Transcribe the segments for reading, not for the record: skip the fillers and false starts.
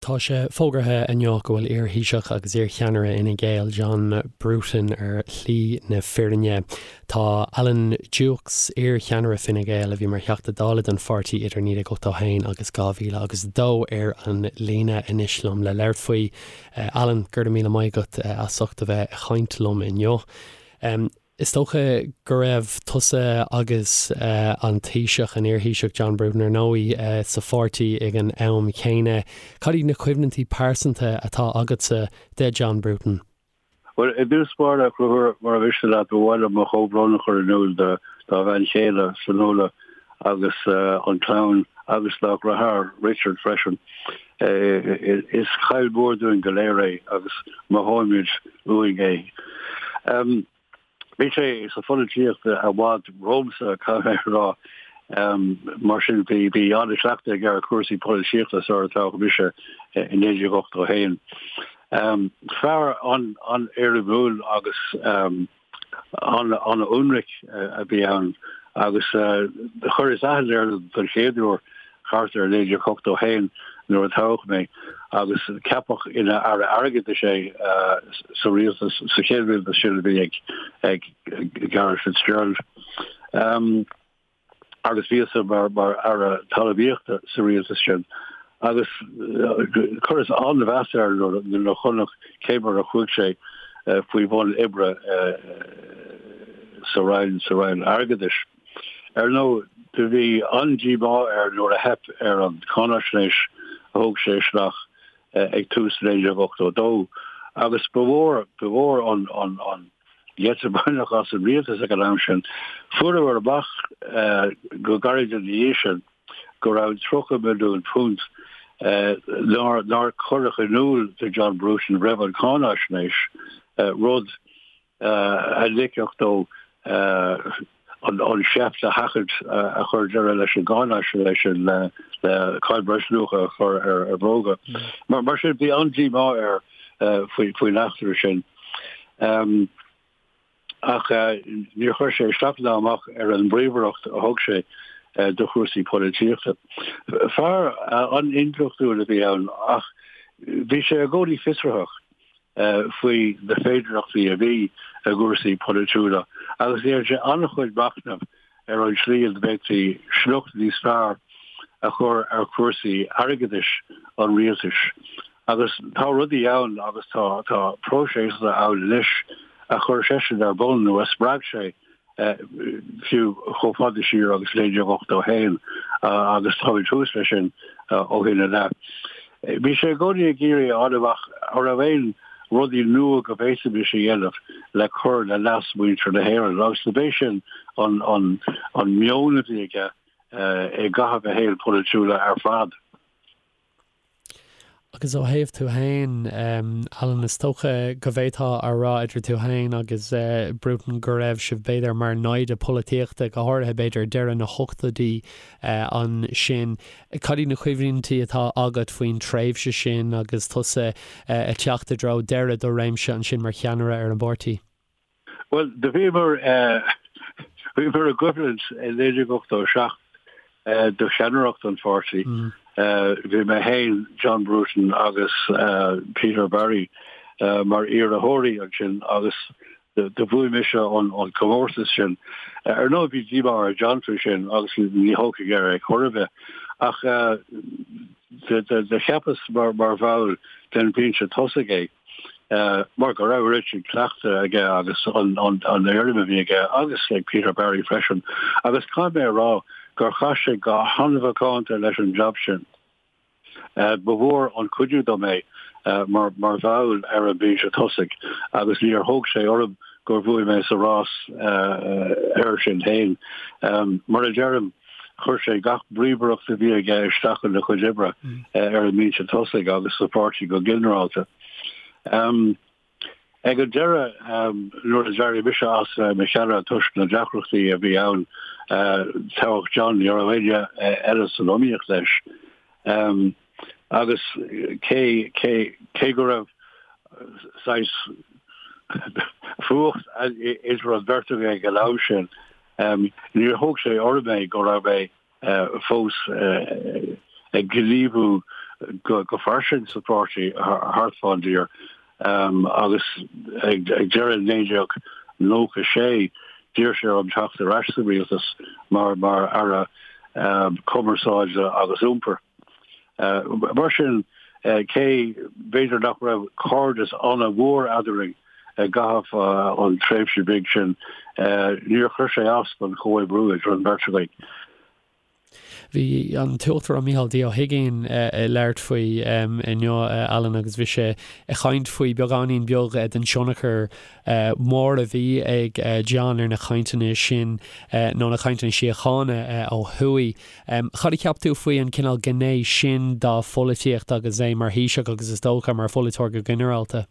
Tá sé fógartha inniu go bhfuil iar-Thaoiseach agus iar-cheannaire Fhine Gael, John Bruton ar shlí na fírinne. Tá Alan Dukes, iar-cheannaire Fine Gael a bhí mar Theachta Dála don pháirtí idir 1981 agus 2002 ar an líne anois liom le labhairt faoi. Alan, go raibh míle maith agat as ucht a bheith ag caint liom inniu. Is dócha go raibh tusa agus an Taoiseach, an iar-Thaoiseach John Bruton ar ndóigh, sa pháirtí ag an am chéanna. Cad iad na cuimhnintí pearsanta atá agatsa de John Bruton? Bhuel, i dtús báire, a Chonchúir, mura mhiste leat, ba mhaith liom mo chomhbhrón a chur in iúl dá bhean chéile, Fionnuala, agus an chlann agus dá dheartháir, Richard, freisin. Is caill mhór dúinn go léir é agus mothóimid uainn é. Bhí sé sa pholaitíocht i bhfad romhamsa, caithfidh mé a rá. Mar sin, bhí bhí an-chleachtadh aige ar chúrsaí polaitíochta sular toghadh mise i 1981. Fear an-éirimiúil agus an-ionraic a bhí ann agus chuireas aithne air don chéad uair thart ar 1981 nuair a toghadh mé agus ceapadh ina Aire Airgeadais é sa rialtas, sa chéad rialtas sin a bhí ag Garret FitzGerald. Agus bhíos-sa mar Aire Talmhaíochta sa rialtas sin agus chuireas an-mheas air nuair a chonac cé mar a chuaigh sé faoi bhun oibre sa Roinn, sa Roinn Airgeadais. Ar ndóigh, do bhí an-díomá air nuair a theip ar an cháinaisnéis a thug sé isteach ag tús 1982 agus ba mhór, ba mhór an gheit a baineadh as an rialtas ag an am sin. Fuaireamar amach go gairid ina dhiaidh sin go raibh £30 milliún nár cuireadh in iúl do John Bruton roimh an cháinaisnéis, rud a ligfeadh dó an seift a sheachaint a chuir deireadh leis an gcáinaisnéis sin le cáin bhreisluacha a chur ar bhróga. Mar sin, bhí an-díomá air faoin eachtra sin. Ach níor chuir sé isteach ná amach ar an bpríomhaireacht a thug sé do chúrsaí polaitíochta. Fear an-intleachtúil a bhí ann ach bhí sé i gcónaí fiosraitheach. faoi na féidearthachtaí a bhí i gcúrsaí polaitiúla agus dhein sé an-chuid machnaimh ar an tslí ina bhféadfaí sliocht níos fearr a chur ar chúrsaí airgeadais an rialtais. Agus tá rudaí ann agus tá tá próiseasanna ann anois a chuir seisean ar bun nó a spreag sé fiú chomh fada siar agus 1981 agus táimid thuas leis sin ó shin i leith. Bhí sé i gcónaí ag iarraidh a fháil amach an raibh aon rudaí nua go bhféadfaimis a dhéanamh le cur le leas mhuintir na hÉireann agus do b'é sin an meon a bhí aige i gcaitheamh a shaoil polaitiúla ar fad. Agus ó thaobh tú féin, Alan, is dócha go bhféadfá a rá idir tú féin agus Bruton go raibh sibh b'fhéidir mar naimhde polaitíochta, go háirithe b'fhéidir deireadh na hochtóidí ansin. Cad iad na cuimhní atá agat faoin tréimhse sin agus tusa ag teacht i dtreo deireadh do réimse ansin mar cheannaire ar an bpáirtí? Bhuel, do bhíomar, bhíomar i gcoimhlint i 1987 do cheannaireacht an pháirtí. Bhí mé féin, John Bruton agus Peter Barry mar iarrthóirí ansin agus do bhuaigh mise an comórtas sin. Ar ndóigh bhí díomá ar John faoi sin agus ní thógfaidh air é chor ar bith. Ach do cheapas mar bhall den bhinse tosaigh é. mar go raibh oiread sin cleachtaidh aige agus an éirim a bhí aige agus ag Peter Barry freisin agus caithfidh mé a rá gur chaith sé go han-mhacánta leis an jab sin. Ba mhór an cuidiú dom é mar bhall ar an mbinse tosaigh agus níor thóg sé orm gur bhuaigh mé sa rás air sin féin. Mar a deirim, Chuir sé gach bríomhaireacht a bhí aige isteach ina chuid oibre ar an mbinse tosaigh agus sa pháirtí go ginearálta. Ag an deireadh, nuair a d'éirigh mise as bheith i mo cheannaire toisc na deacrachtaí a bhí ann, toghadh John, ní raibh éinne eile san iomaíocht leis. Agus cé, cé, cé go raibh saghas fuacht idir an bheirt againn ag an am sin, níor thóg sé orm é go raibh mé fós ag gníomhú go fairsing sa pháirtí thart fán dtír agus ag deireadh 1996 d'iarr sé orm teacht ar ais sa rialtas mar mar Aire Cumarsáide agus Iompair. Mar sin, cé b'fhéidir nach raibh cairdeas an-mhór eadrainn i gcaitheamh an tréimhse bhig sin, níor chuir sé as don chomhoibriú idir an bheirt againn. Bhí an tUachtarán Micheál D. Ó hUigínn ag labhairt faoi inniu, Alan, agus bhí sé ag caint faoi beagáinín beag den tionchar mór a bhí ag John ar na cainteanna sin, nó na cainteanna síochána ó thuaidh. Cad a cheap tú faoi an cineál gné sin dá pholaitíocht agus é mar Thaoiseach agus is dócha mar pholaiteoir go ginearálta?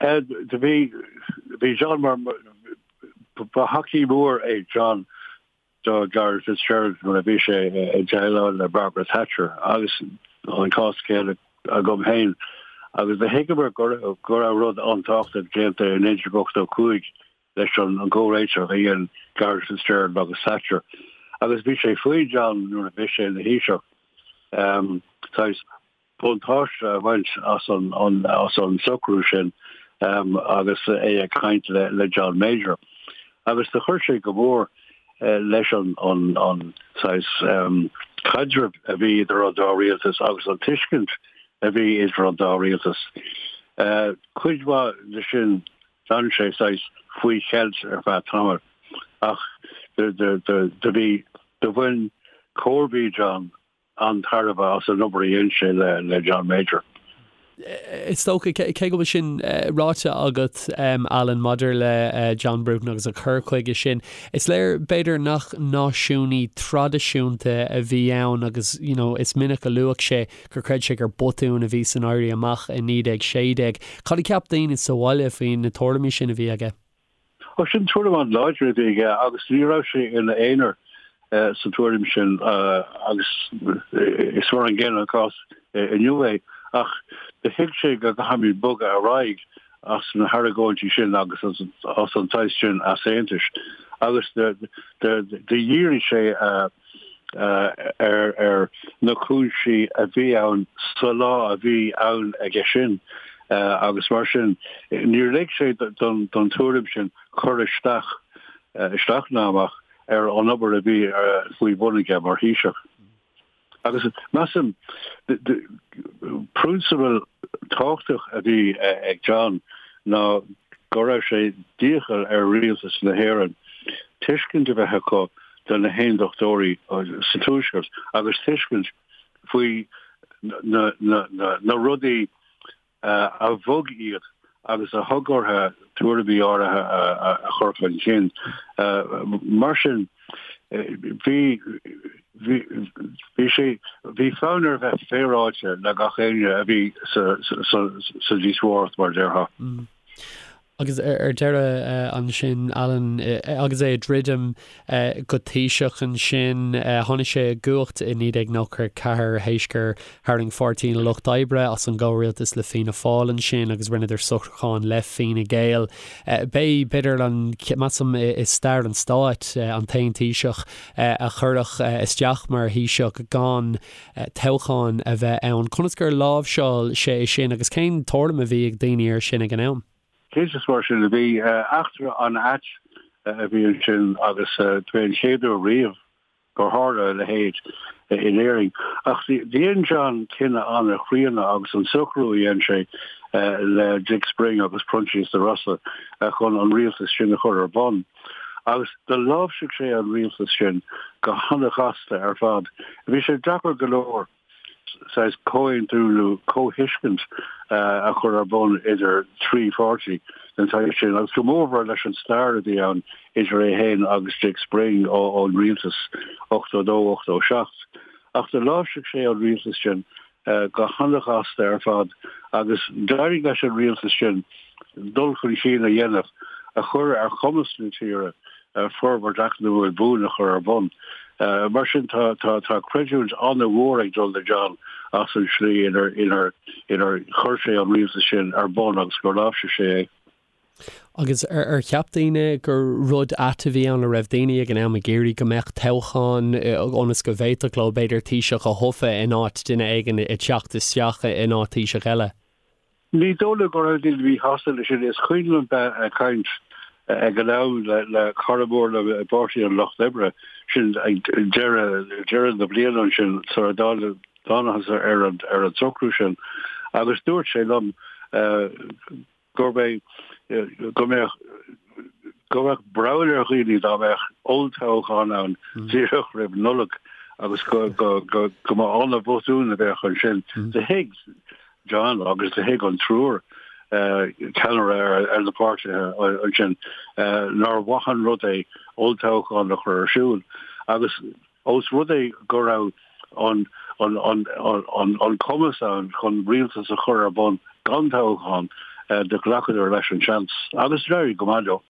Do bhí John mar, ba thacaí mór é John do Garret Fitzgerald nuair a bhí sé ag déileáil le Margaret Thatcher agus an cás céanna agam féin agus do thuigeamar go raibh rud an-tábhachtach déanta i 1985 leis an gcomhréiteach a dhein Garret Fitzgerald agus Thatcher agus bhí sé faoi John nuair a bhí sé ina Thaoiseach saghas buntáiste a bhaint as an socrú sin agus é ag caint le John Major. Agus do chuir sé go mór leis an saghas caidreamh a bhí idir an dá rialtas agus an tuiscint a bhí idir an dá rialtas. Cuid mhaith de sin d'fhan sé saghas faoi cheilt ar feadh tamaill ach do bhí, do bhain comharbaí John an-tairbhe as an obair a dhein sé le John Major. Is dócha, cé go bhfuil sin ráite agat, Alan, maidir le John Bruton agus a chur chuige sin, is léir, b'fhéidir, nach náisiúnaí traidisiúnta a bhí ann agus, you know, is minic a luadh sé gur chreid sé gur botún a bhí san Éirí Amach i 1916. Cad a cheap daoine sa bhaile faoi na tuairimí sin a bhí aige? Ó, sin tuairim an-láidir a bhí aige agus ní raibh sé ina aonar sa tuairim sin agus is mar an gcéanna an cás inniu é. Ach do thuig sé go gcaithfimid bogadh ar aghaidh as na hargóintí sin agus as an saghas sin easaontais agus do dhírigh sé ar na cúinsí a bhí ann sa lá a bhí ann aige sin agus mar sin níor lig sé don tuairim sin cur isteach, isteach ná amach ar an obair a bhí faoi bhun aige mar Thaoiseach. Agus measaim, prionsabal tábhachtach a bhí ag John ná go raibh sé d'iachall ar rialtas na hÉireann tuiscint a bheith acu do na hAondachtóirí sa Tuaisceart agus tuiscint faoi na rudaí a bhog iad agus a thug orthu tuairimí áirithe a chur chun cinn. Mar sin, bhí bhí sé bhí fonn air bheith féaráilte le gach éinne a bhí sa sa díospóireacht mar a déarfá. Agus ar deireadh ansin, Alan, agus é ag druidim go Taoiseach ansin, tháinig sé i gcumhacht i 1994 théis gur tharraing Pháirtí an Lucht Oibre as an gcomhrialtas le Fianna Fáil ansin agus rinneadar socrúchán le Fine Gael. B'é, b'fhéidir, an, measaim, i stair an stáit, an t-aon Taoiseach a cuireadh isteach mar Thaoiseach gan toghchán a bheith ann. Conas gur láimhseáil sé é sin agus cén tuairim a bhí ag daoine air sin ag an am? Cinnte is mar sin a bhí. Eachtra an-ait a bhí ansin agus b'é an chéad uair riamh gur tharla a leithéid in Éirinn. Ach dhein John cinneadh an-chríonna agus an socrú a dhein sé le Dick Spring agus Proinsias de Rossa chun an rialtas sin a chur ar bun. Agus do láimhsigh sé an rialtas sin go han-ghasta ar fad. Bhí sé deacair go leor saghas comhaontú nó comhthuiscint a chur ar bun idir thrí pháirtí den tsaghas sin, agus go mórmhór leis an stair a bhí ann idir é féin agus Dick Spring ón rialtas 82, 87. Ach do láimhsigh sé an rialtas sin go han-ghasta ar fad agus d'éirigh leis an rialtas sin dul chun cinn a dhéanamh a chuir ar chumas na tíre forbairt eacnamúil buan a chur ar bun. Mar sin tá creidiúint an-mhór ag dul do John as an slí inar chuir sé an rialtas sin ar bun agus gur láimhsigh sé é. Agus ar cheap daoine gur rud ait a bhí ann, an raibh daoine ag an am ag iarraidh go mbeadh toghchán ionas go bhféadfadh leo b'fhéidir Taoiseach a thoghadh in áit duine éigin ag teacht isteach in áit Taoiseach eile? Ní dóigh liom go raibh daoine míshásta leis sin. Is cuimhin liom bheith ag caint ag an am le cara mór liom i bPáirtí an Lucht Oibre, sin ag deireadh deireadh na bliana ansin sula dtángthas ar an socrú sin agus dúirt sé liom gurb é go mbeadh go mbeadh breall ar dhaoine dá mbeadh olltoghchán ann díreach roimh Nollaig agus go go go go mba an-bhotún a bheadh ansin. Do thuig John agus do thuig an triúr ceannaire ar ar na páirtithe ansin nár mhaith an rud é olltoghchán a chur ar siúl agus Ós rud é go raibh an an cumas ann chun rialtas a chur ar bun gan toghchán, do ghlacadar leis an seans agus d'éirigh go maith leo.